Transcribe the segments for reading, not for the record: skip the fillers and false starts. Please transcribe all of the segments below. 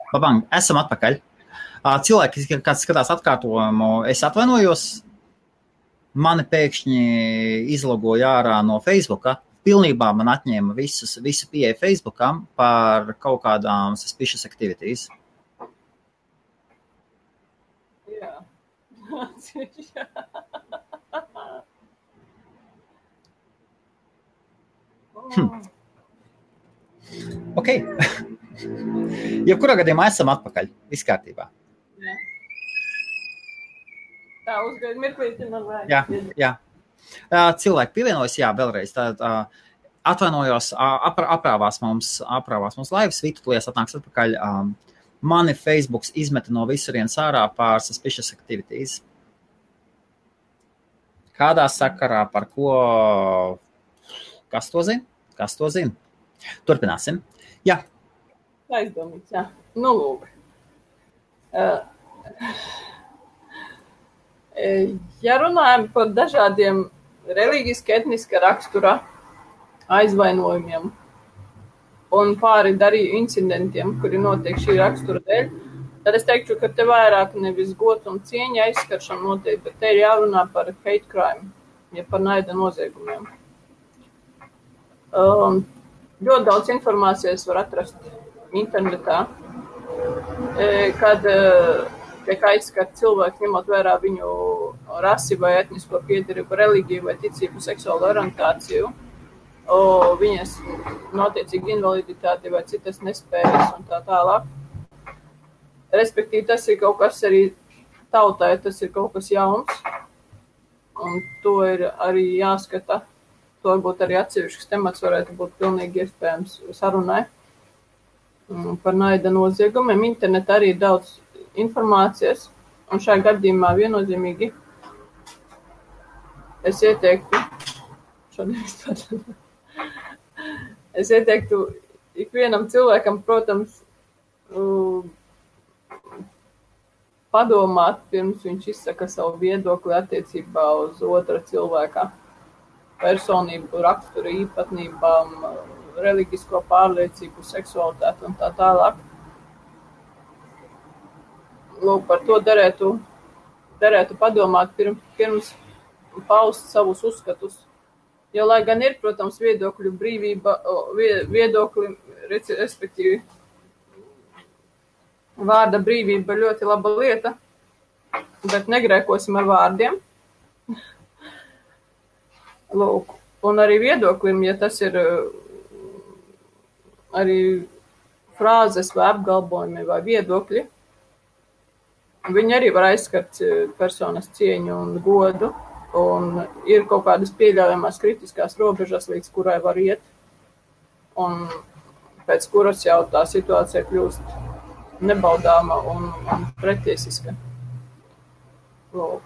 Babang, esam atpakaļ. Cilvēki, kas skatās atkārtojumu, es atvainojos. Mani pēkšņi izlogoja ārā no Facebooka. Pilnībā man atņēma visu pieeju Facebookam par kaut kādām suspicious activities. Jā. Ok. Jebkurā gadījumā esam atpakaļ. Viss kārtībā. Jā. Tā, uzgaid mirklīti man vajag. Jā. Cilvēki pievienojas, jā, vēlreiz. Atvainojos, aprāvās mums laivas, Vītu tulies atnāks atpakaļ. Mani Facebooks izmeta no visurienes ārā pār suspicious activities. Kādā sakarā, par ko? Kas to zina? Turpināsim. Jā. Aizdomīgs, jā. Nu, lūk. Ja runājam par dažādiem reliģiski etniska rakstura aizvainojumiem un pāri darīju incidentiem, kuri notiek šī rakstura dēļ, tad es teiktu, ka te vairāk nevis gods un cieņa aizskaršana notiek, bet te ir jārunā par hate crime, ja par naida noziegumiem. Ļoti daudz informācijas var atrast internetā, kad tiek aizskart cilvēki, ņemot vērā viņu rasi vai etnisko piedarību, reliģiju vai ticību, seksuālo orientāciju, viņas notiecīgi invaliditāti vai citas nespējas un tā tālāk. Respektīvi, tas ir kaut kas arī tautai, tas ir kaut kas jauns, un to ir arī jāskata. To varbūt arī atsevišķs temats varētu būt pilnīgi iespējams sarunai par naida noziegumiem. Internetā arī ir daudz informācijas, un šajā gadījumā viennozīmīgi es ieteiktu ikvienam cilvēkam, protams, padomāt, pirms viņš izsaka savu viedokli attiecībā uz otra cilvēka personību, raksturu īpatnībām, reliģisko pārliecību, seksualitāti un tā tālāk. Lūk, par to derētu padomāt pirms paust savus uzskatus. Jo, lai gan ir, protams, viedokļu brīvība, respektīvi vārda brīvība ļoti laba lieta, bet negrēkosim ar vārdiem. Lūk, un arī viedoklim, ja tas ir arī frāzes vai apgalvojumi vai viedokļi, viņi arī var aizskart personas cieņu un godu, un ir kaut kādas pieļaujamās kritiskās robežas, līdz kurai var iet, un pēc kuras jau tā situācija kļūst nebaudāma un pretiesiska. Lūk.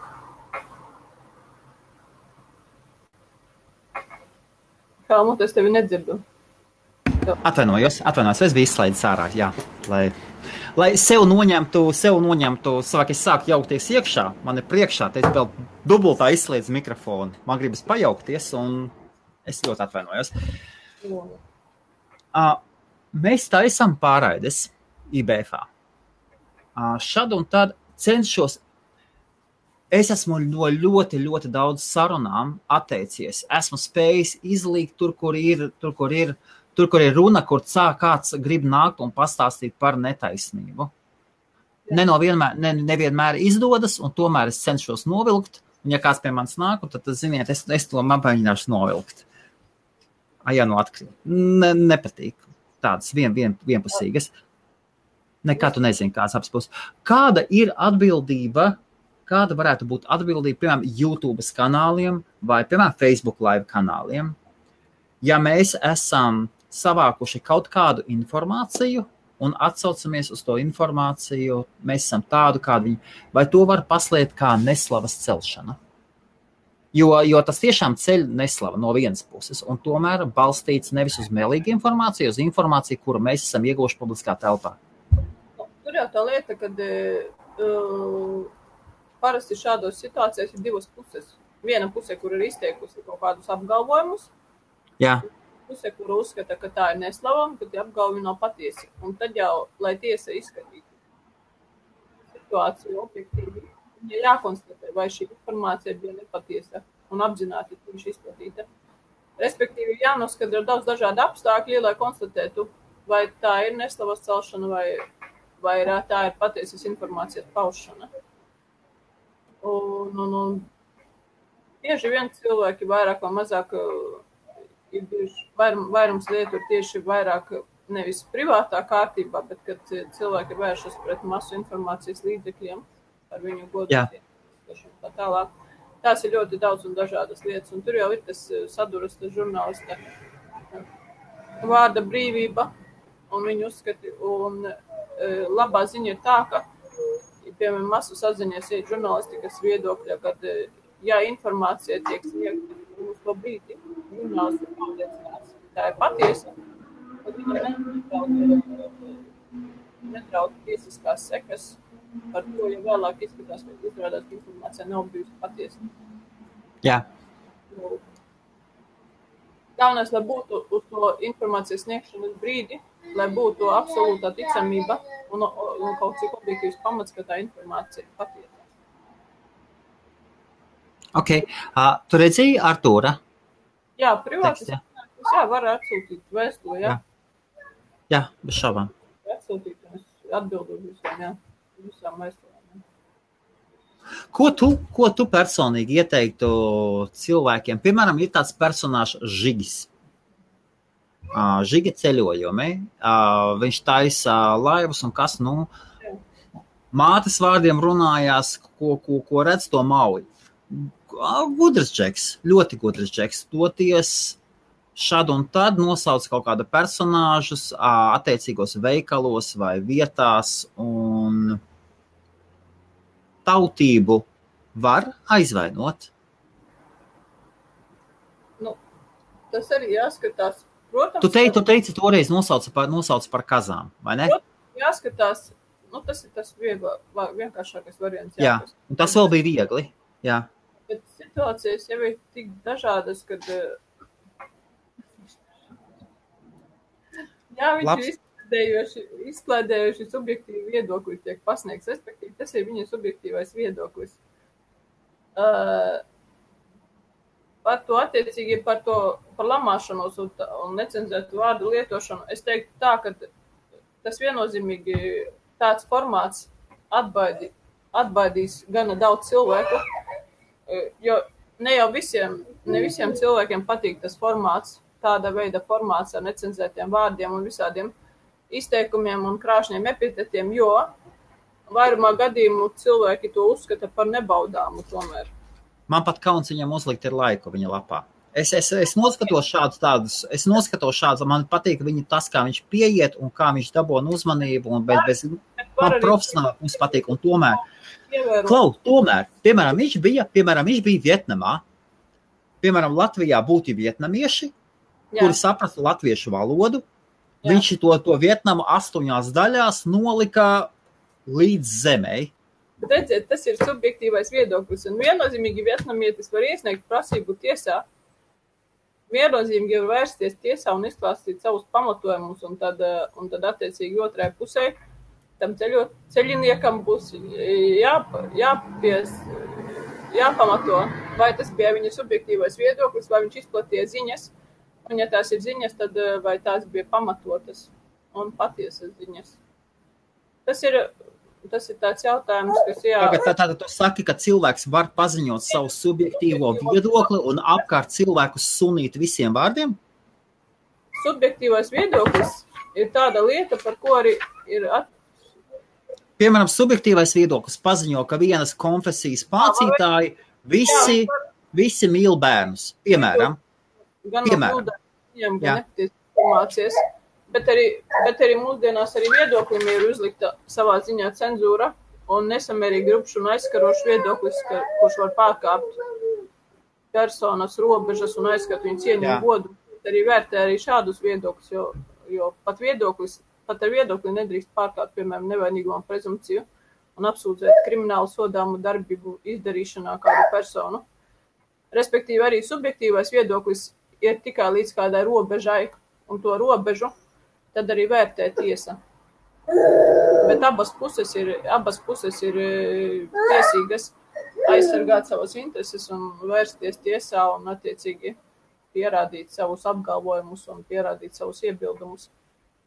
Helmut, es tevi nedzirdu. Atvainojos, es biju izslaidis ārā, jā, lai sev noņemtu, savāk es sāku jaukties iekšā, man ir priekšā, te es vēl dubultā izslēdzu mikrofonu, man gribas pajaukties, un es ļoti atvainojos. Mēs taisam pārraides IBFā. Šad un tad cenšos. Es esmu no ļoti, ļoti daudz sarunām atteicies. Esmu spējis izlīgt tur, kur ir runa, kur kāds grib nākt un pastāstīt par netaisnību. Nevienmēr izdodas, un tomēr es cenšos novilkt. Un ja kāds pie manis nāk, tad ziniet, es to mēģināšu novilkt. Ja nu atkrīt. Nepatīk. Tādas vienpusīgas. Nekā tu nezini, kāds apspūs. Kāda ir atbildība? Kāda varētu būt atbildība, piemēram, YouTube kanāliem vai, piemēram, Facebook live kanāliem? Ja mēs esam savākuši kaut kādu informāciju un atsaucamies uz to informāciju, mēs esam tādu, kādu viņi, vai to var paslēpt kā neslavas celšana? Jo tas tiešām ceļ neslava no vienas puses, un tomēr balstīts nevis uz melīgu informāciju, uz informāciju, kuru mēs esam ieguvuši publiskā telpā. Tur jau tā lieta, kad parasti šādos situācijās ir divas puses. Viena puse, kur ir izteikusi kaut kādus apgalvojumus. Jā. puse, kura uzskata, ka tā ir neslavama, ka tie apgalvumi nav patiesi. Un tad jau, lai tiesa izskatītu situāciju objektīvi, ja jākonstatē, vai šī informācija bija nepatiesa un apzināti viņš izplatīta. Respektīvi, jānoskatra daudz dažādu apstākļu, lai konstatētu, vai tā ir neslavas celšana, vai tā ir patiesas informācijas paušana. Un bieži vien cilvēki vairāk vai mazāk ir bijuši, vairums lietu ir tieši vairāk nevis privātā kārtībā, bet kad cilvēki vēršas pret masu informācijas līdzekļiem ar viņu godotiem. Tā tālāk. Tās ir ļoti daudz un dažādas lietas, un tur jau ir tas saduras, tas žurnālista vārda brīvība, un viņu uzskati, un labā ziņa ir tā, ka, piemēram, masu saziņas ir žurnālistikas viedokļa, kad, ja informācija tiek sniegta uz to brīdi, žurnālisti pārliecinās, tā ir patiesa, tad viņa netrauc tiesiskās sekas par to, ja vēlāk izskatās, ka izrādās, ka informācija nav bijusi patiesa. Jā. Galvenais, lai būtu uz to informācijas sniegšanas brīdi, lai būtu absolūtā ticamība un kaut cik objektīvs pamats, ka tā informācija ir patiesa. Ok. Tu redzēji Artūra? Jā, privātis. Jā, var atsūtīt vēstuli, jā. Jā, bez šaubām. Atsūtīt, un es atbildu visām vēstulēm. Ko tu personīgi ieteiktu cilvēkiem? Piemēram, ir tāds personāžs Žigis. Žiga ceļojumi. Viņš taisa laivas un kas, mātes vārdiem runājās, ko redz to mauj. Gudrs džeks, ļoti gudrs džeks. Toties šad un tad nosauc kaut kādu personāžus attiecīgos veikalos vai vietās, un tautību var aizvainot. Tas arī jāskatās. Protams, Tu teici toreiz nosauc par kazām, vai ne? Jāskatās, tas ir tas vienkāršākais variants. Jā, un tas vēl bija viegli. Jā. Bet situācijas jau ir tik dažādas, kad viņš ir izklēdējuši subjektīvu viedokli tiek pasniegts, respektīvi, tas ir viņa subjektīvais viedoklis. Par to attiecīgi, par lamāšanos un necenzētu vārdu lietošanu, es teiktu tā, ka tas viennozīmīgi tāds formāts atbaidīs gana daudz cilvēku, jo ne visiem cilvēkiem patīk tas formāts, tāda veida formāts ar necenzētiem vārdiem un visādiem izteikumiem un krāšņiem epitetiem, jo vairumā gadījumu cilvēki to uzskata par nebaudāmu tomēr. Man pat kauns viņam uzlikt ir laiku viņa lapā. Es noskatos šādus, man patīk viņa tas, kā viņš pieiet un kā viņš dabona uzmanību, un man profesionāli mums patīk, un tomēr, piemēram, viņš bija Vietnamā, piemēram, Latvijā būtu vietnamieši, kuri saprastu latviešu valodu, viņš to Vietnamu 8 daļās nolika līdz zemei. Bet redziet, tas ir subjektīvais viedoklis, un viennozīmīgi vietnamietis var iesniegt prasību tiesā, viennozīmīgi var vērsties tiesā un izklāstīt savus pamatojumus, un tad attiecīgi otrai pusē tam ceļiniekam būs jāpamato, vai tas bija viņa subjektīvais viedoklis, vai viņš izplatīja ziņas, un ja tās ir ziņas, tad vai tās bija pamatotas un patiesas ziņas. Tas ir tāds jautājums, kas Tātad tu saki, ka cilvēks var paziņot savu subjektīvo viedokli un apkārt cilvēkus sunīt visiem vārdiem? Subjektīvais viedoklis ir tāda lieta, par ko arī ir Piemēram, subjektīvais viedoklis paziņo, ka vienas konfesijas mācītāji visi mīl bērnus. Piemēram. Gan nepatiesas informācijas. Bet arī mūsdienās arī viedoklim ir uzlikta savā ziņā cenzūra un nesamērīgi rupšs un aizskarošs viedoklis, kurš var pārkāpt personas robežas un aizskart viņu cieņu un godu. Arī vērtē arī šādus viedokļus, jo pat ar viedokli nedrīkst pārkāpt, piemēram, nevainīguma prezumpciju un apsūdzēt kriminālu sodāmu darbību izdarīšanā kādu personu. Respektīvi arī subjektīvais viedoklis iet tikai līdz kādai robežai, un to robežu tad arī vērtē tiesa. Bet abas puses ir tiesīgas aizsargāt savas intereses un vērsties tiesā un attiecīgi pierādīt savus apgalvojumus un pierādīt savus iebildumus.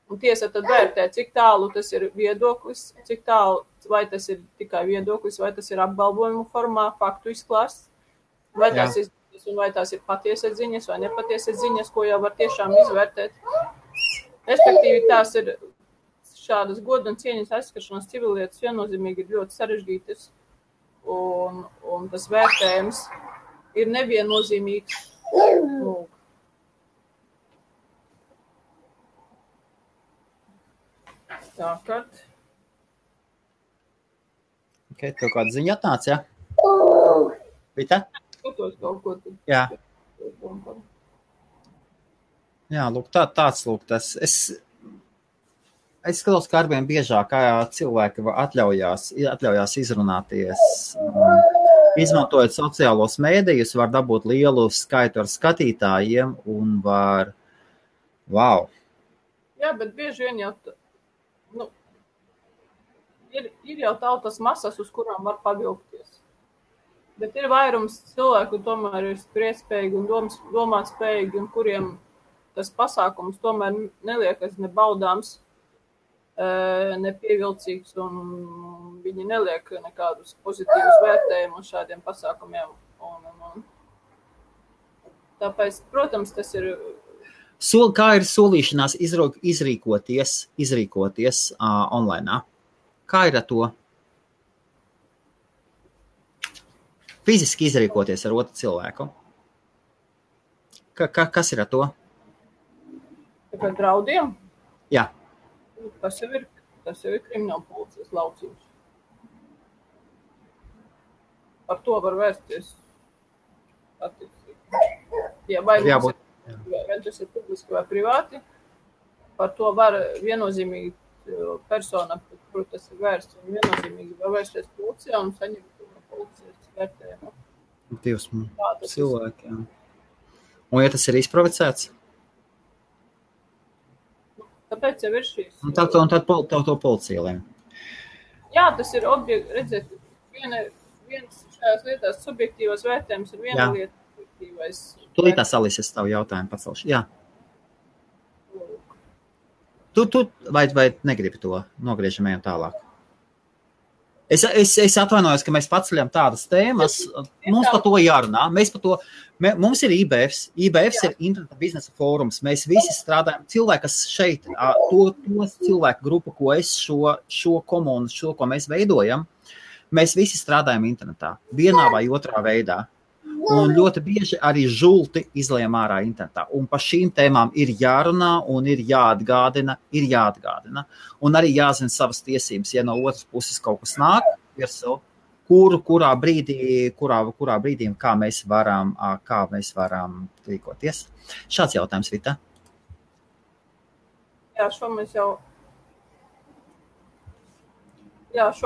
Un tiesa tad vērtē, cik tālu tas ir viedoklis, cik tālu, vai tas ir tikai viedoklis, vai tas ir apgalvojumu formā, faktu izklāsts, vai tās ir ziņas, un vai tās ir patiesas ziņas vai nepatiesas ziņas, ko jau var tiešām izvērtēt. Respektīvi, tās ir šādas goda un cieņas aizskaršanas civillietas viennozīmīgi ir ļoti sarežģītas, un tas vērtējums ir neviennozīmīgs. Tā, kad? Okay, tev kāda ziņa atnāca, ja? Vita? Skatos kaut ko. Jā. Jā, lūk, tāds lūk tas. Es skatos, ka arvien biežāk cilvēki atļaujās izrunāties. Izmantojot sociālos mēdījus, var dabūt lielu skaitu ar skatītājiem un var... Wow! Jā, bet bieži vien jau... Ir jau tautas masas, uz kurām var pavilkties. Bet ir vairums cilvēku, tomēr ir spriestspējīgi un domāt spējīgi, un kuriem tas pasākums tomēr neliekas ne baudāms, ne pievilcīgs, un viņi neliek nekādus pozitīvus vērtējumus šādiem pasākumiem. Tāpēc, protams, tas ir... Kā ir solīšanās izrīkoties online? Kā ir ar to? Fiziski izrīkoties ar otru cilvēku? Kas ir ar to? Par draudiem? Jā. Tas jau ir krimināla policijas lauciņš. Par to var vērsties attiecīgi. Ja vai tas ir publiski vai privāti, par to var viennozīmīgi persona, kur tas ir vērsts, un viennozīmīgi var vērsties policijā un saņemt policijas vērtējumu. Dievs, cilvēki, jā. Un ja tas ir izprovocēts? Tāpēc jau ir šīs. Un tad to policija lēm. Jā, tas ir redzēt, viens šajās lietās subjektīvās vērtējums ir viena lieta subjektīvais. Tūlītās Alises tavu jautājumu pacelšu. Jā. Tu vai negribi to? Nogriežam ejam tālāk. Es atvainojos, ka mēs paceļam tādas tēmas. Mums par to jārunā. Mums ir IBFs. IBFs ir interneta biznesa fórums. Mēs visi strādājam. Cilvēki, kas šeit, to cilvēku grupu, ko es šo komunu, ko mēs veidojam, mēs visi strādājam internetā. Vienā vai otrā veidā. Un ļoti bieži arī žulti izlējam ārā internetā. Un par šīm tēmām ir jārunā un ir jāatgādina. Un arī jāzina savas tiesības, ja no otras puses kaut kas nāk virsū, kurā brīdī kā mēs varam rīkoties. Šāds jautājums, Vita. Jā, šo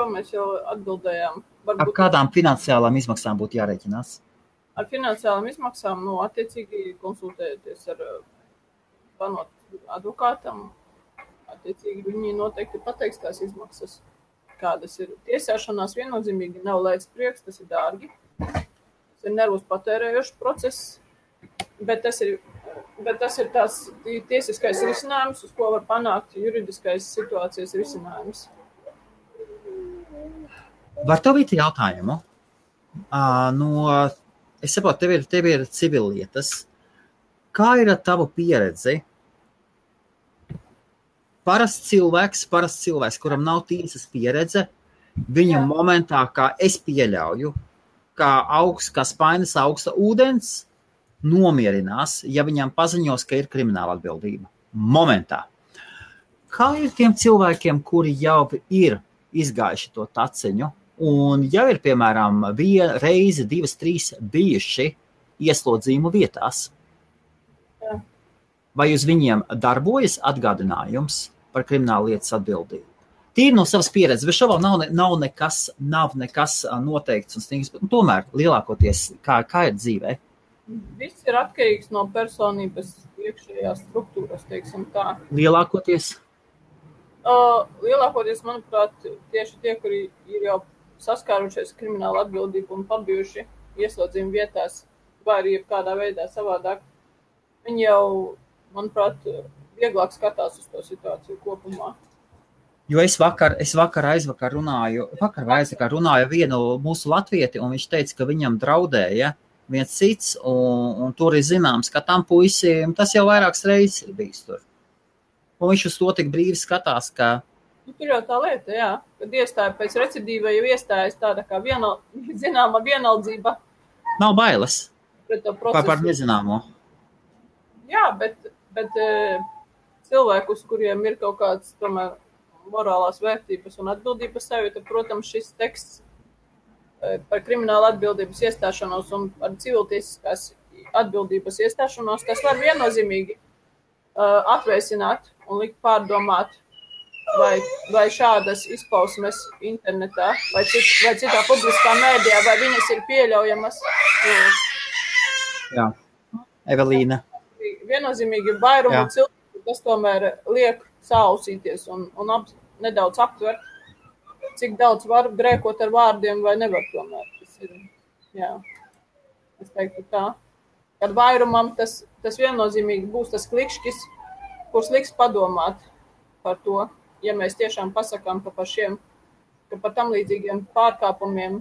mēs jau atbildējām. Ar kādām finansiālām izmaksām būtu jārēķinās? Ar finansiālām izmaksām, attiecīgi konsultējoties ar advokātam, attiecīgi viņi noteikti pateiks tās izmaksas, kādas ir. Tiesāšanās viennozīmīgi nav lēts prieks, tas ir dārgi, tas ir nervus patērējošs process, bet tas ir tās tiesiskais risinājums, uz ko var panākt juridiskais situācijas risinājums. Var tevīt jautājumu? Es saprotu, tev ir civillietas. Kā ir ar tavu pieredzi? Parasts cilvēks, kuram nav tiesas pieredze, viņa momentā, kā es pieļauju, kā spainis augsta ūdens, nomierinās, ja viņam paziņos, ka ir krimināla atbildība. Momentā. Kā ir tiem cilvēkiem, kuri jau ir izgājuši to taciņu, un jau ir, piemēram, reizi, 2, 3 bijuši ieslodzījumu vietās? Jā. Vai uz viņiem darbojas atgādinājums par kriminālu lietas atbildību? Tīri no savas pieredzes, bet šobrīd nav nekas noteikts un stingrs, bet tomēr lielākoties, kā ir dzīvē? Viss ir atkarīgs no personības iekšējās struktūras, teiksim tā. Lielākoties? Lielākoties, manuprāt, tieši tie, kuri ir jau saskārušies krimināla atbildību un pabijuši ieslodzījuma vietās, vai arī kādā veidā savādāk, viņi jau, manuprāt, vieglāk skatās uz to situāciju kopumā. Jo es aizvakar runāju vienu mūsu latvieti, un viņš teica, ka viņam draudēja viens cits, un tur ir zināms, ka tam puisim tas jau vairākas reizes ir bijis tur. Un viņš uz to tik brīvi skatās, ka... Tur jau tā lieta, jā, kad iestāja pēc recidīva, jau iestājas tāda kā zināma vienaldzība. Nav bailes. Pret to procesu. Par nezināmo. Jā, bet cilvēkus, kuriem ir kaut kāds, tomēr, morālās vērtības un atbildības sajūta, protams, šis teksts par kriminālu atbildības iestāšanos un par civiltiesiskās atbildības iestāšanos, tas var viennozīmīgi atvēsināt un likt pārdomāt, vai šādas izpausmes internetā, vai citā publiskā mēdījā, vai viņas ir pieļaujamas. Jā, Evelīna. Viennozīmīgi vairumu cilvēku, tas tomēr liek sausīties un nedaudz aptvert, cik daudz var grēkot ar vārdiem vai nevar tomēr. Tas ir, jā, es teiktu tā. Kad vairumam tas viennozīmīgi būs tas klikšķis, kurš liks padomāt par to, ja mēs tiešām pasakām, ka par tam līdzīgiem pārkāpumiem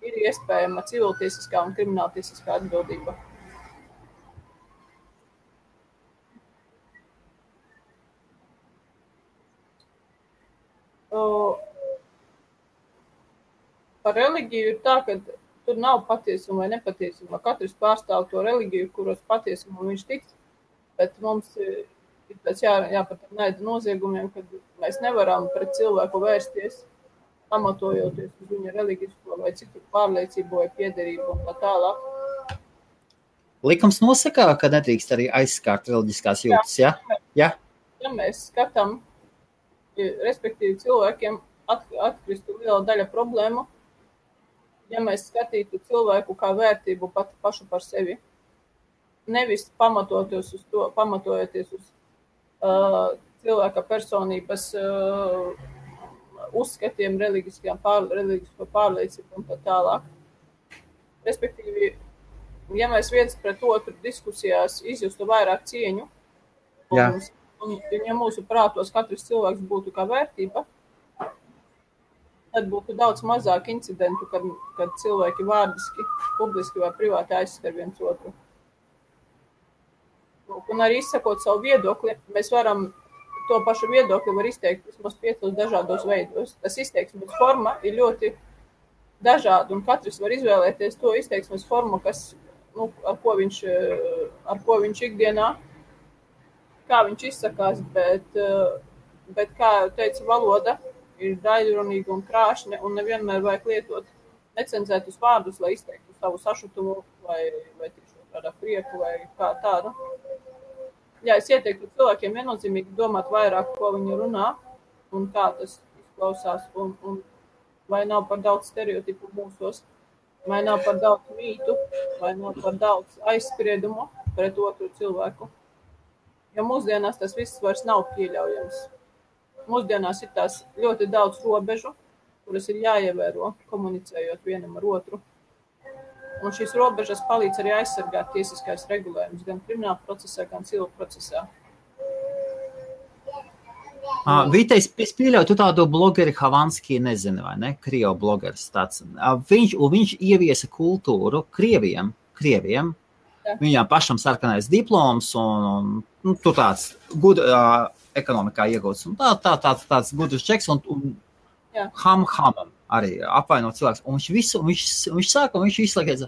ir iespējama civiltiesiskā un krimināltiesiskā atbildība. Par reliģiju ir tā, ka tur nav patiesuma vai nepatiesuma. Katrs pārstāv to reliģiju, kuros patiesuma viņš tic, bet mums ir pēc jāpat naida noziegumiem, kad mēs nevaram pret cilvēku vērsties, pamatojoties uz viņa reliģisko vai citu pārliecību vai piederību un tā tālāk. Likums nosaka, ka nedrīkst arī aizskārt reliģiskās jūtas, ja? Ja mēs skatām, respektīvi cilvēkiem atkristu liela daļa problēmu, ja mēs skatītu cilvēku kā vērtību pašu par sevi, nevis pamatojoties uz cilvēka personības uzskatiem, reliģisko pārliecību un tā tālāk. Respektīvi, ja mēs viens pret otru diskusijās izjustu vairāk cieņu, un ja mūsu prātos katrs cilvēks būtu kā vērtība, tad būtu daudz mazāk incidentu, kad cilvēki vārdiski, publiski vai privāti aizskar viens otru. Un arī izsakot savu viedokli, mēs varam to pašu viedokli var izteikt vismaz 5 dažādos veidos. Tas izteiksmes forma ir ļoti dažāda, un katrs var izvēlēties to izteiksmes formu, kas, ar ko viņš ikdienā, kā viņš izsakās, bet kā teica, valoda ir daļrunīga un krāšņa, un nevienmēr vajag lietot necenzētus vārdus, lai izteiktu savu sašutumu vai tiešām kādā prieku vai kā tādu. Jā, es ieteiktu cilvēkiem viennozīmīgi domāt vairāk, ko viņi runā un kā tas izklausās, un vai nav par daudz stereotipu mūsos, vai nav par daudz mītu, vai nav par daudz aizspriedumu pret otru cilvēku. Jo mūsdienās tas viss vairs nav pieļaujams. Mūsdienās ir tās ļoti daudz robežu, kuras ir jāievēro, komunicējot vienam ar otru. Un šīs robežas palīdz arī aizsargāt tiesiskais regulējums gan krimināla procesā, gan civil procesā. Vita, es pieļauju, tu tādu blogeri Havanski nezini, vai ne? Krievu blogeris tāds. Viņš ieviesa kultūru Krieviem. Viņām pašam sarkanais diploms un tur tāds ekonomikā iegūts. Un tāds gudrs čeks un hamam arī apvainot cilvēks. Un viņš sāka, un viņš izslēgās.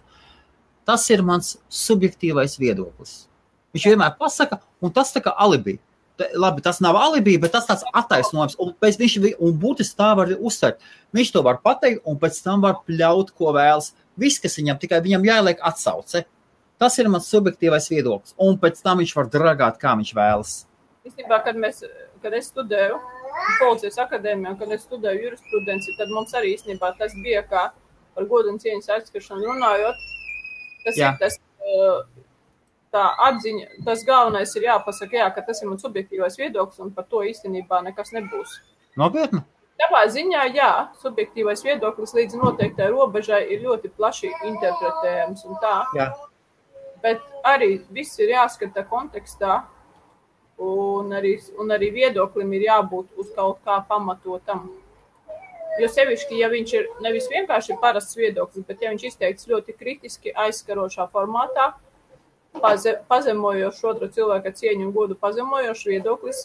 Tas ir mans subjektīvais viedoklis. Viņš vienmēr pasaka, un tas tā kā alibi. Labi, tas nav alibi, bet tas tāds attaisnojums. Un būtiski tā var uzsvērt. Viņš to var pateikt, un pēc tam var pļaut, ko vēlas. Viss, kas tikai viņam jāieliek atsauce. Tas ir mans subjektīvais viedoklis. Un pēc tam viņš var dragāt, kā viņš vēlas. Īstenībā, kad es studēju policijas akadēmijā, kad es studēju jurisprudenci, tad mums arī īstenībā tas bija kā par godu un cieņas aizskaršanu runājot. Tas ir tas tā atziņa, tas galvenais ir jāpasaka, jā, ka tas ir mans subjektīvais viedoklis, un par to īstenībā nekas nebūs. Nopietni? Savā ziņā, jā, subjektīvais viedoklis līdz noteiktai robežai ir ļoti plaši interpretējams un tā. Jā. Bet arī viss ir jāskata kontekstā, un arī viedoklim ir jābūt uz kaut kā pamatotam. Jo sevišķi, ja viņš ir nevis vienkārši parasts viedoklis, bet ja viņš izteikts ļoti kritiski aizskarošā formātā, pazemojošs otra cilvēka cieņu un godu pazemojošs viedoklis,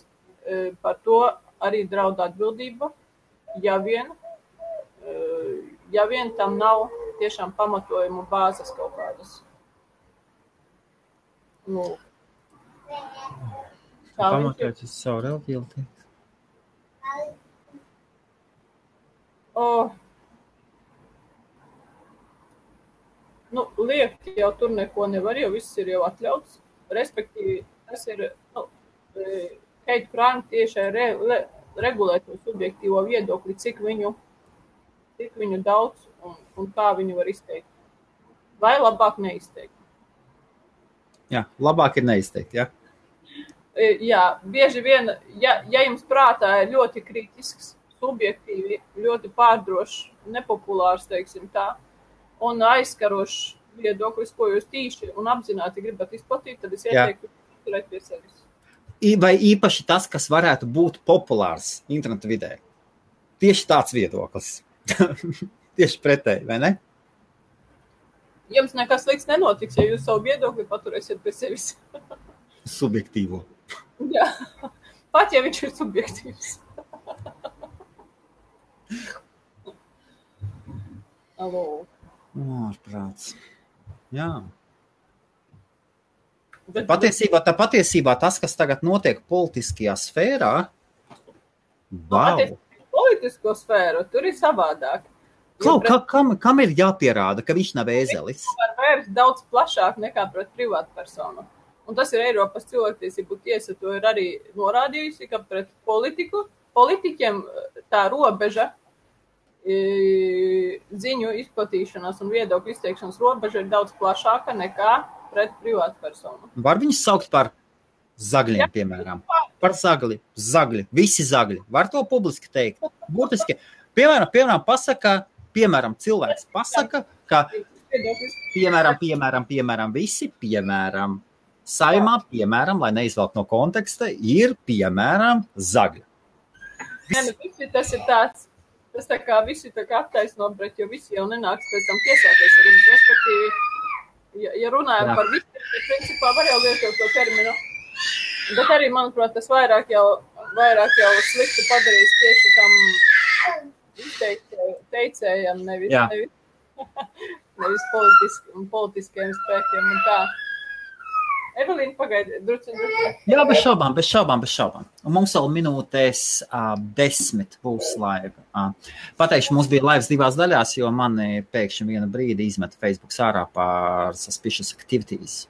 par to arī draud atbildība, ja vien tam nav tiešām pamatojumu bāzes kaut kādas. Nu, Pamatojoties uz savu reliģiju. Liekt jau tur neko nevar, jo viss ir jau atļauts. Respektīvi, tas ir Keita Prāna tiešai regulēt to subjektīvo viedokli, cik viņu daudz un kā viņu var izteikt. Vai labāk neizteikt? Jā, labāk ir neizteikt, jā. Jā, bieži vien, ja jums prātā ir ļoti kritisks, subjektīvi, ļoti pārdrošs, nepopulārs, teiksim tā, un aizskarošs viedoklis, ko jūs tīši un apzināti gribat izplatīt, tad es ieteiktu turēt pie sevis. Vai īpaši tas, kas varētu būt populārs interneta vidē. Tieši tāds viedoklis. Tieši pretēji, vai ne? Jums nekas slikts nenotiks, ja jūs savu viedokli paturēsiet pie sevis. Subjektīvo. Jā, pat ja viņš ir subjektīvs. Alo. Ārprāts. Jā. Patiesībā tas, kas tagad notiek politiskajā sfērā, politisko sfēru, tur ir savādāk. Kam ir jāpierāda, ka viņš nav ēzelis? Viņš var vērst daudz plašāk nekā pret privātu personu. Un tas ir Eiropas cilvēktiesību tiesa, to ir arī norādījusi, ka pret politiķiem tā robeža, ziņu izplatīšanās un viedokļu izteikšanas robeža ir daudz plašāka nekā pret privātu personu. Var viņus saukt par zagļiem, piemēram? Par zagļi, visi zagļi. Var to publiski teikt? Būtiski. Piemēram, cilvēks pasaka, ka piemēram, visi, piemēram, saimā, piemēram, lai neizvelk no konteksta, ir, piemēram, zagļi. Tas ir tāds, tas tā kā visi tā kā attaisno, bet jo visi jau nenāks pēc tam tiesāties ar viņus, respektīvi, ja runājam par visu, tad principā var jau lietot to terminu, bet arī, manuprāt, tas vairāk jau slikti padarīs tieši tam teicējam, nevis politiskajiem spēkiem un tā. Evelīna, pagaidi, druci. Jā, bez šaubām. Un mums vēl minūtēs 10 būs laiva. Pateikšu, mums bija laivas 2 daļās, jo mani pēkšņi vienu brīdi izmeta Facebook ārā par suspicious activities.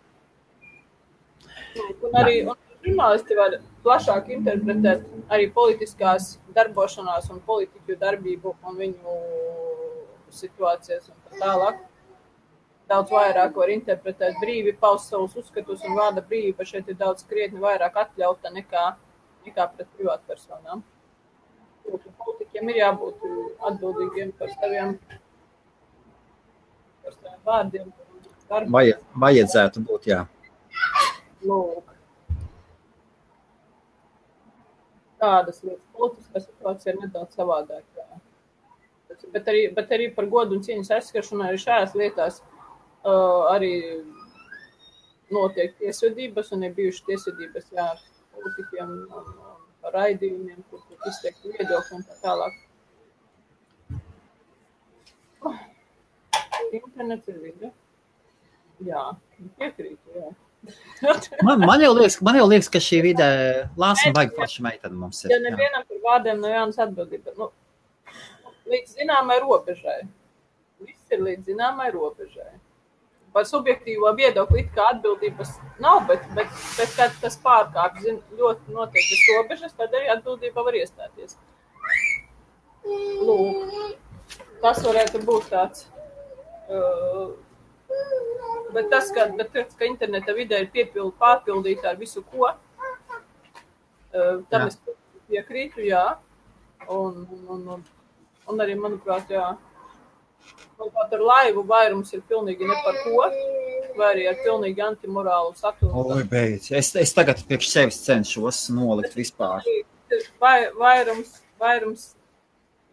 Un arī žurnālisti var plašāk interpretēt arī politiskās darbošanās un politiķu darbību un viņu situācijas un tā tālāk. Daudz vairāk var interpretēt brīvi, paust savus uzskatus un vārda brīvība šeit ir daudz krietni vairāk atļauta nekā pret privātu personām. Politiķiem ir jābūt atbildīgiem par saviem vārdiem. Vajadzētu būt, jā. Lūk. Tādas lietas. Politiskā situācija ir nedaudz savādāk. Bet arī par godu un cieņas aizskaršanu arī šajās lietās arī notiek tiesvedības un ir bijušas tiesvedības ar politiķiem un par raidījumiem, kur izteikti viedokļi un tā tālāk. Internets ir vide. Jā, piekrītu, jā. Man jau liekas, ka šī vide lāsuma vajag plaša meitene mums ir. Ja nevienam par vārdiem nav jānas atbildība. Līdz zināmai robežai. Viss ir līdz zināmai robežai. Par subjektīvo viedokli it kā atbildības nav, bet kad tas pārkāp ļoti noteiktas robežas, tad arī atbildība var iestāties. Lūk, tas varētu būt tāds Bet tas, ka interneta vidē ir pārpildīta ar visu, ko, tam es piekrītu, jā. Un arī, manuprāt, jā. Manuprāt, ar laivu vairums ir pilnīgi ne par ko, vai arī ar pilnīgi antimorālu saturu. Oi, beidz. Es tagad priekš sevis cenšos nolikt vispār. Vairums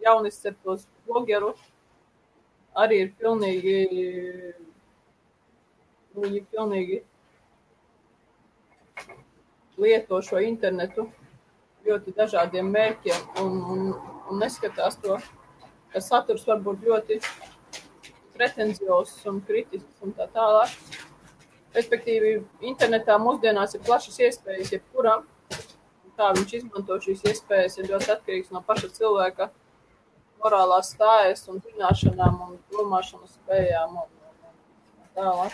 jaunisceptos blogeru arī ir pilnīgi lieto šo internetu ļoti dažādiem mērķiem un neskatās to, ka saturs var būt ļoti pretenziozs un kritisks un tā tālāk. Respektīvi, internetā mūsdienās ir plašas iespējas jebkuram. Kā viņš izmanto šīs iespējas ir ļoti atkarīgs no paša cilvēka morālās stājas un zināšanām un domāšanas spējām un tālāk.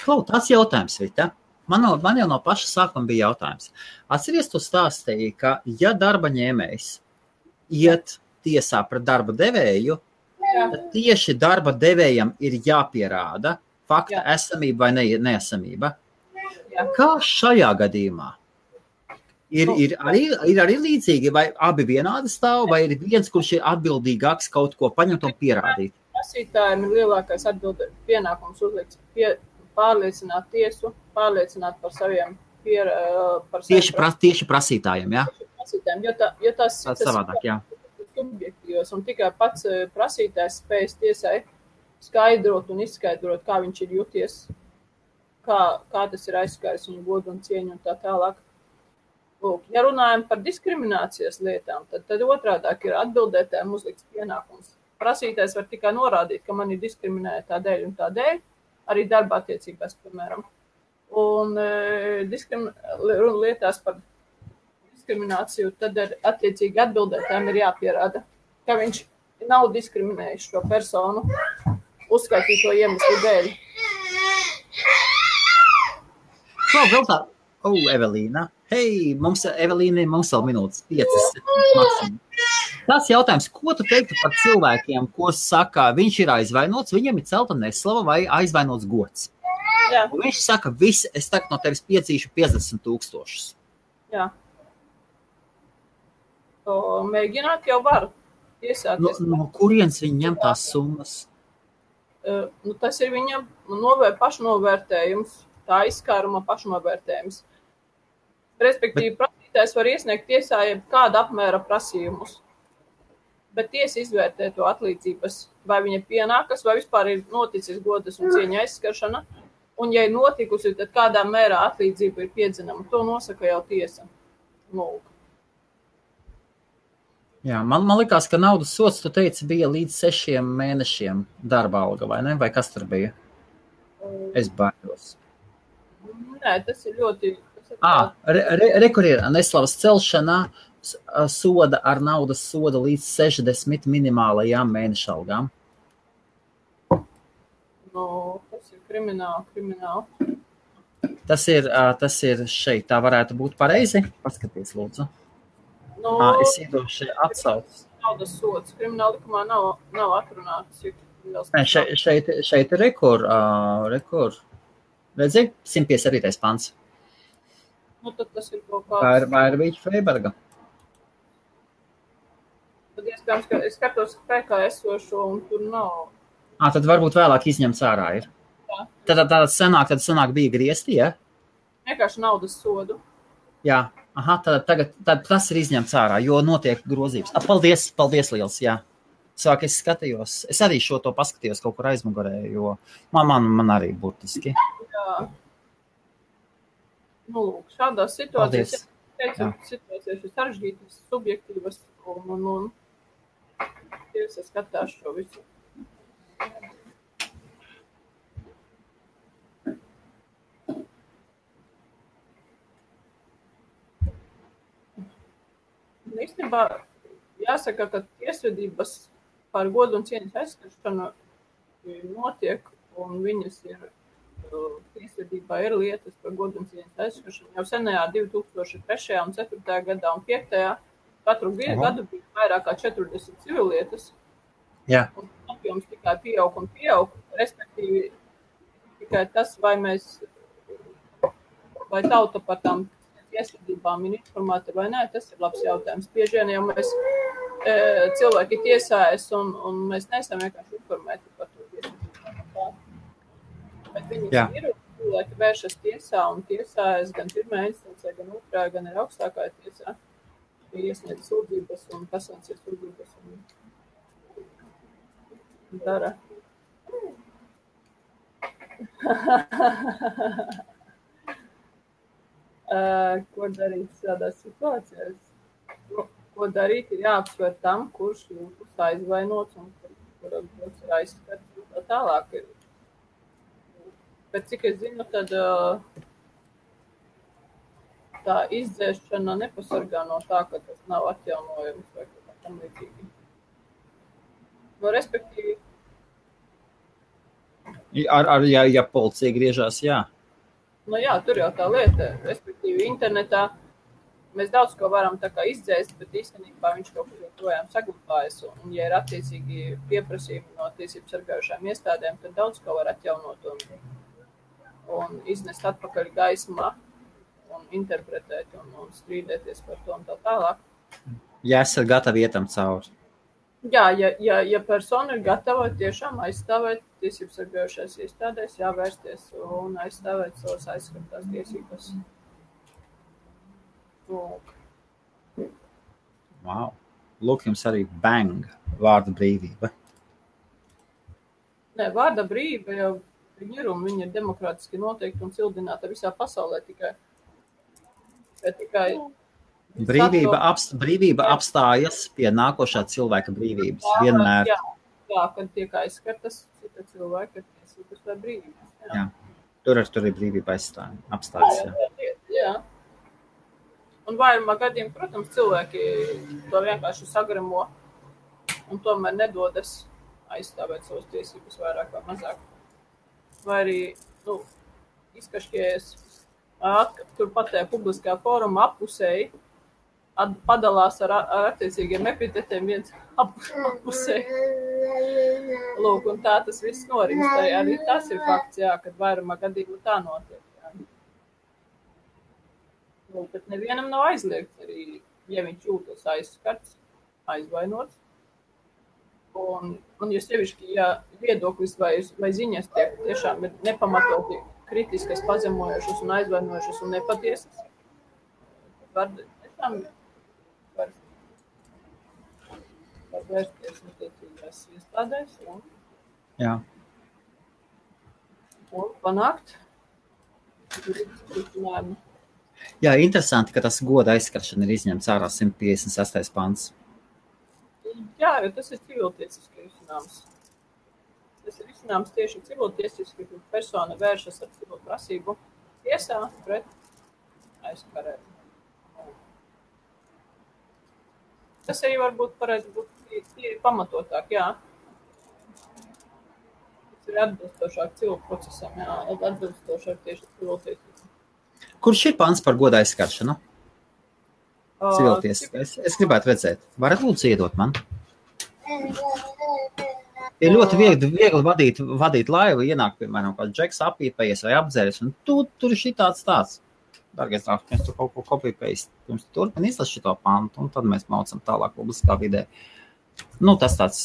Klau, tāds jautājums, Vita. Man jau no paša sākuma bija jautājums. Atceries, tu stāstīji, ka ja darba ņēmējs iet tiesā pret darba devēju, tad tieši darba devējam ir jāpierāda fakta esamība vai neesamība. Kā šajā gadījumā? Ir arī līdzīgi, vai abi vienādi stāv, vai ir viens, kurš ir atbildīgāks kaut ko paņemt un pierādīt? Prasītājiem ir lielākais pienākums uzlikts pārliecināt tiesu, pārliecināt par saviem Tieši prasītājiem, jā? Tieši prasītājiem, jo tas savādāk, jā. Subjektīvos, un tikai pats prasītājs spējas tiesai skaidrot un izskaidrot, kā viņš ir juties, kā tas ir aizskāris viņu godu un cieņu un tā tālāk. Lūk, ja runājam par diskriminācijas lietām, tad otrādāk ir atbildētājiem uzlikts pienākums. Prasītājs var tikai norādīt, ka man ir diskriminēta tādēļ un tādēļ, arī darba attiecībās, piemēram. Un lietās par diskrimināciju, tad attiecīgi atbildētājiem ir jāpierāda, ka viņš nav diskriminējis šo personu uzskaitīto iemeslu dēļ. Vēl tā. Evelīna. Hei, Evelīna, mums vēl minūtes 5 maksimum. Tas jautājums, ko tu teiktu par cilvēkiem, ko saka, viņš ir aizvainots, viņam ir celta neslava vai aizvainots gods? Jā. Un viņš saka, es tagad no tevis piedzīšu 50,000. Jā. Mēģināt jau var iesāties. No kurienes viņi ņem tās summas? Tas ir viņam pašnovērtējums, tā izskāruma pašnovērtējums. Respektīvi, prasītājs var iesniegt tiesā kāda apmēra prasījumus, bet tiesa izvērtē to atlīdzības, vai viņa pienākas, vai vispār ir noticis godas un cieņa aizskaršana, un ja ir notikusi, tad kādā mērā atlīdzība ir piedzinama. To nosaka jau tiesa. Lūk. Jā, man likās, ka naudas sods, tu teici, bija līdz 6 mēnešiem darba alga, vai ne? Vai kas tur bija? Es baidos. Nē, tas ir ļoti... Kur ir neslavas celšanā soda ar naudas soda līdz 60 minimālajām mēneša algām. Tas ir krimināli. Tas ir šeit, tā varētu būt pareizi. Paskaties, lūdzu. Es iedošu atsaucas. Naudas sods. Krimināla likumā nav atrunāts. Šeit ir rekur. Redzi, 157. pants. Tad tas ir kaut kāds... Vai ir Vīķa Freiberga? Tad iespējams, ka es skatos spēkā esošo un tur nav. Tad varbūt vēlāk izņemts ārā ir. Jā. Tad senāk bija griezti, ja? Vienkārši naudas sodu. Jā, tad tas ir izņemts ārā, jo notiek grozības. Paldies liels, jā. Sāk es skatījos, es arī šo to paskatījos kaut kur aizmugurē, jo man arī burtiski. Jā. Lūk, šādās situācijās, situācijas ir sarežģītas, subjektīvas un tiesa skatās šo visu. Īstenībā jāsaka, ka tiesvedības par godu un cieņas aizskaršanu notiek un viņas ir tiesvedībā ir lietas par godu un cieņas aizskaršanu. Jau senajā 2003. un 4. gadā un 5. katru gadu bija vairāk kā 40 civilietas. Jā. Un apjoms tikai pieaug un pieaug. Respektīvi, Tikai tas, vai tauta par tām tiesvedībām ir informēta vai nē, tas ir labs jautājums. Bieži vien jau mēs cilvēki tiesājas un mēs neesam vienkārši informēti par to tiesvedībām. Bet viņi ir, cilvēki vēršas tiesā un tiesājas gan pirmā instancē, gan otrā, gan ir augstākā tiesā. Iesniedz sūdzības un kasācijas sūdzības un dara. Ko darīt šādās situācijās? Ko darīt ir jāapsver tam, kurš jūtas aizvainots un kuram ir aizskats un tā tālāk. Bet cik es zinu, tad tā izdzēšana nepasargā no tā, ka tas nav atjaunojums vai kā tam līdzīgi. No respektīvi. Ja policija griežās, jā. Nu jā, tur jau tā lieta, respektīvi internetā mēs daudz ko varam tā kā izdzēst, bet īstenībā viņš kaut kur joprojām saglabājas. Un ja ir attiecīgi pieprasījumi no tiesību sargājušām iestādēm, tad daudz ko var atjaunot un iznest atpakaļ gaismā un interpretēt un strīdēties par to un tā tālāk. Ja esat gatavi ietam cauri. Jā, ja persona ir gatava tiešām aizstāvēt tiesības sargājušās iestādēs, jāvērsties un aizstāvēt savas aizskartās tiesības. Wow. Lūk, jums arī bang, vārda brīvība. Nē, vārda brīvība jau ir un viņa ir demokrātiski noteikti un cildināta visā pasaulē tikai. Brīvība apstājas pie nākošā cilvēka brīvības. Vienmēr. Jā, kad tiek aizskartas cita cilvēka tiesības vai brīvības. Jā. Tur ir brīvība apstājas. Jā. Un vairumā gadījumā, protams, cilvēki to vienkārši sagramo un tomēr nedodas aizstāvēt savas tiesības vairāk vai mazāk. Vai arī, izkašķējas turpat tajā publiskā fóruma appusēji, padalās ar attiecīgiem epitetiem viens appusēji. Lūk, un tā tas viss norimst. Arī tas ir fakts, jā, kad vairumā gadījumā tā notiek. Jā. Lūk, bet nevienam nav aizliegts arī, ja viņš jūtas aizskarts, aizvainots. Un ja sevišķi, ja viedoklis vai ziņas tiek tiešām ir nepamatoti kritiskas, pazemojošas un aizvainojošas un nepatiesas, var vērsties attiecīgās iestādēs un panākt risinājumu. Jā, interesanti, ka tas goda aizskaršana ir izņemts ārā 156. pants. Jā, jo tas ir civiltiesiski risinājums. Tas ir risinājums tieši civiltiesiski, kad persona vēršas ar civilu prasību tiesā pret aizskarēju. Tas arī varbūt varētu būt pamatotāk, jā. Tas ir atbilstošāk civilu procesam, jā, atbilstošāk tieši civiltiesiski. Kurš ir pants par goda aizskaršanu? Civiltiesiski. Es gribētu redzēt. Varat lūdzu iedot man? Ir ļoti viegli vadīt laivu, ienāk, piemēram, kāds džeks apīpējies vai apdzēries, un tur ir šitāds tāds. Dargais draugs, mēs tur kaut ko kopīpējis, pirms turpin izlas šito pantu, un tad mēs maucam tālāk publiskā vidē. Tas tāds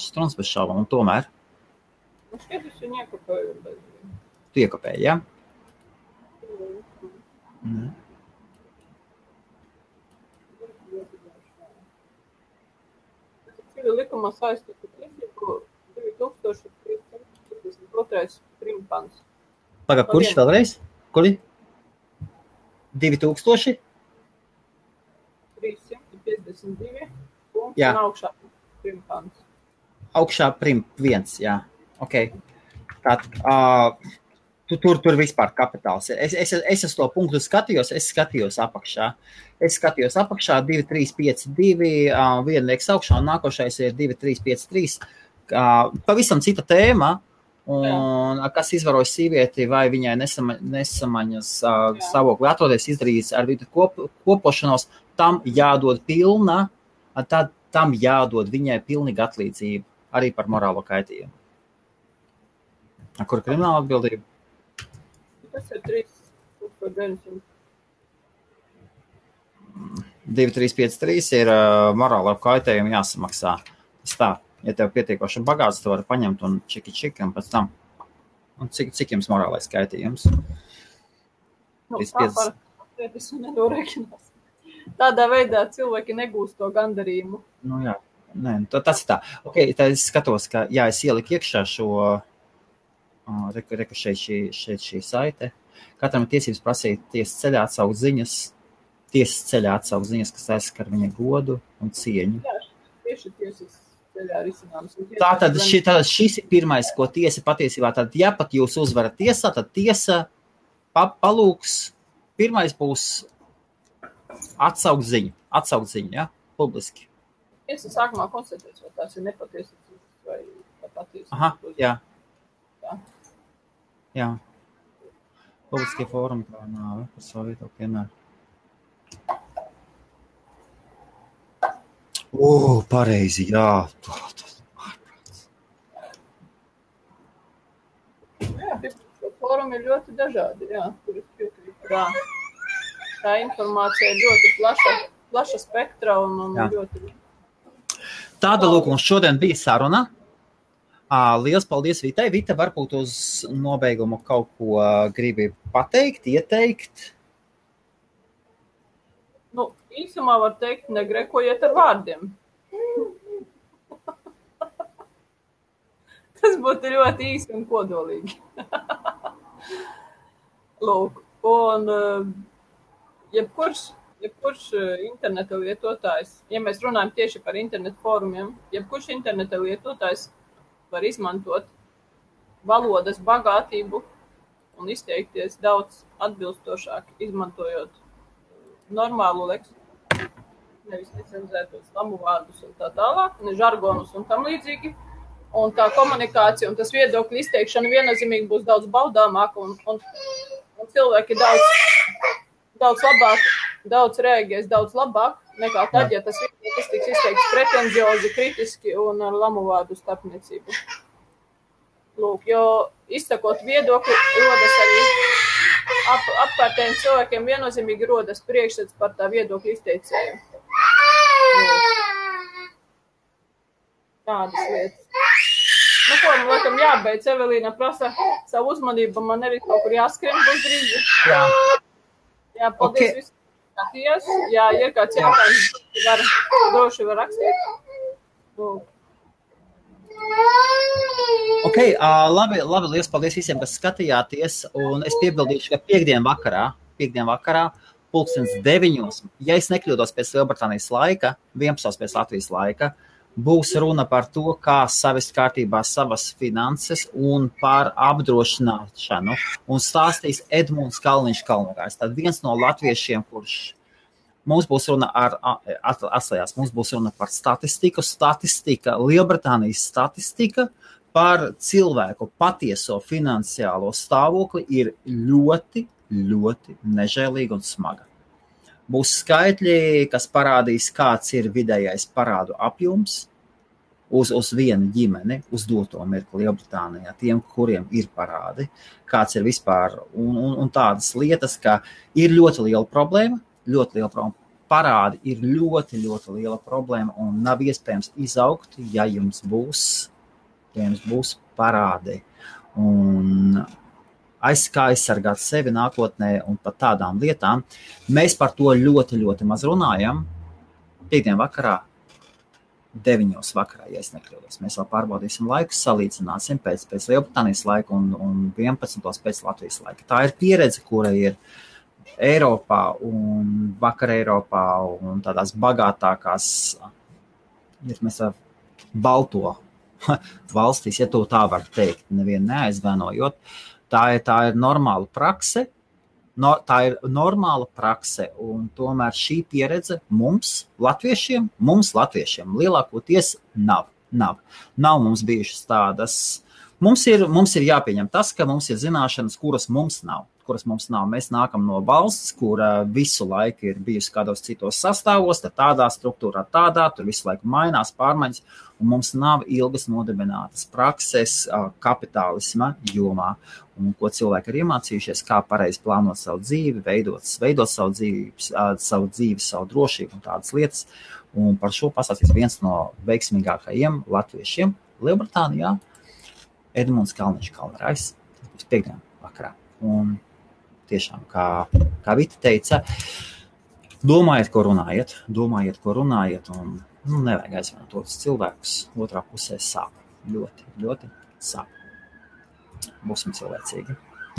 struns bez šaubām, un tomēr. Skaidrs, viņi iekopēju. Tu iekopēji, jā? Likumā saistītu tiesību 2352. primpants. Pagad, kurš vēlreiz? Kuri? 2000? 352 un augšā primpants. Augšā prim 1, jā. Ok. Tur vispār kapitāls. Es to punktu skatījos, es skatījos apakšā. 2, 3, 5, 2, viena liekas augšā, un nākošais ir 2, 3, 5, 3. Pavisam cita tēma, un kas izvaroja sīvieti, vai viņai nesamaņas stāvokli atrodies, izdarījis ar vidu kopošanos, tam jādod tam jādod viņai pilnīga atlīdzība, arī par morālo kaitījumu. Kur krimināla atbildība? Tas ir 3,900. 2353 ir morāla kaitējuma jāsamaksā. Tas tā, ja tev pietiekoši bagāts, tu vari paņemt un čiki un pēc tam. Un cik jums morālais kaitījums? Tā parasti nedorēķinās. Tādā veidā cilvēki negūst to gandarījumu. Nu jā, nē, tas ir tā. Ok, tā es skatos, ka jā, es ieliku iekšā šo, reku šeit šī saite. Katram ir tiesības prasīt tiesas ceļā atsaukt ziņas, kas aizskar viņa godu un cieņu. Jā, tieši tiesas ceļā risināms. Tātad šis ir pirmais, ko tiesa patiesībā, tad ja pat jūs uzvarat tiesā, tad tiesa palūks, pirmais būs atsaukt ziņu, ja, publiski. Tiesa sākumā konstatēs, vai tās ir nepatiesas vai patiesas. Aha, jā. Jā. Publiskie fórumi kā nāve par savu viedokli vienmēr. Pareizi, jā. Jā, fórumi ir ļoti dažādi, jā. Tā informācija ir ļoti plaša spektra un ļoti... Tāda lūk, mums šodien bija saruna. Liels paldies Vitai. Vita, varbūt uz nobeigumu kaut ko gribi pateikt, ieteikt? Nu, īsumā var teikt, negrekojiet ar vārdiem. Tas būtu ļoti īsi un kodolīgi. Lūk, un jebkurš interneta lietotājs, ja mēs runājam tieši par internetu fórumiem, jebkurš interneta lietotājs var izmantot valodas bagātību un izteikties daudz atbilstošāk, izmantojot normālu leksiku, nevis necenzētos lamu vārdus un tā tālāk, ne žargonus un tam līdzīgi. Un tā komunikācija un tas viedokļu izteikšana viennozīmīgi būs daudz baudāmāka un cilvēki daudz labāk, daudz reaģēs daudz labāk nekā tad, ja tas viedoklis tiks izteikts pretenziozi, kritiski un ar lamu vārdu starpniecību. Lūk, jo izsakot viedokli, rodas arī apkārtējiem cilvēkiem viennozīmīgi rodas priekšstats par tā viedokļu izteicēju. Tādas lietas. Nu, ko, man laikam jābeidz, Evelīna prasa savu uzmanību, man arī kaut kur jāskrien būs drīzi. Jā, paldies visiem. Jā, ir kāds jautājums, droši var rakstīt. Ok, labi, liels paldies visiem, kas skatījāties, un es piebildīšu, ka piekdien vakarā, 9:00, ja es nekļūdos pēc Lielbritānijas laika, 11:00 pēc Latvijas laika, būs runa par to, kā savest kārtībā savas finanses un par apdrošināšanu. Un stāstīs Edmunds Kalniņš Kalnogājs. Tad viens no latviešiem, kurš mums būs runa atslējās, mums būs runa par statistika, Lielbritānijas statistika par cilvēku patieso finansiālo stāvokli ir ļoti, ļoti nežēlīga un smaga. Būs skaitļi, kas parādīs, kāds ir vidējais parādu apjoms uz vienu ģimeni, uz doto mirkli Lielbritānijā, tiem, kuriem ir parādi, kāds ir vispār, un tādas lietas, ka ir ļoti liela problēma, parādi ir ļoti, ļoti liela problēma, un nav iespējams izaugt, ja jums būs parādi. Un kā aizsargāt sevi nākotnē un par tādām lietām. Mēs par to ļoti, ļoti maz runājam. Piekdien vakarā, 9:00 vakarā, ja es nekļūdos. Mēs vēl pārbaudīsim laiku, salīdzināsim pēc Lielbritānijas laika un 11:00 pēc Latvijas laika. Tā ir pieredze, kura ir Eiropā un vakar Eiropā un tādās bagātākās, ja mēs ar balto valstīs, ja to tā var teikt, nevienu neaizvainojot. Tā ir normāla prakse, un tomēr šī pieredze mums, latviešiem, lielākoties nav. Nav mums bijušas tādas. Mums ir jāpieņem tas, ka mums ir zināšanas, kuras mums nav. kuras mums nav. Mēs nākam no valsts, kura visu laiku ir bijusi kādos citos sastāvos, tad tādā struktūrā, tur visu laiku mainās, pārmaiņas, un mums nav ilgas nodibinātas prakses kapitālisma jomā, un ko cilvēki ir iemācījušies, kā pareizi plānot savu dzīvi, veidot savu dzīvi, savu drošību un tādas lietas. Un par šo pastāstīs viens no veiksmīgākajiem latviešiem Lielbritānijā, Edmunds Kalniņš Kalnrājs, tas būs piekdien vakarā. Un tiešām, kā Vita teica, domājiet, ko runājiet, un nevajag aizvainot otrs cilvēkus, otrā pusē sāp. Ļoti, ļoti sāp. Būsim cilvēcīgi.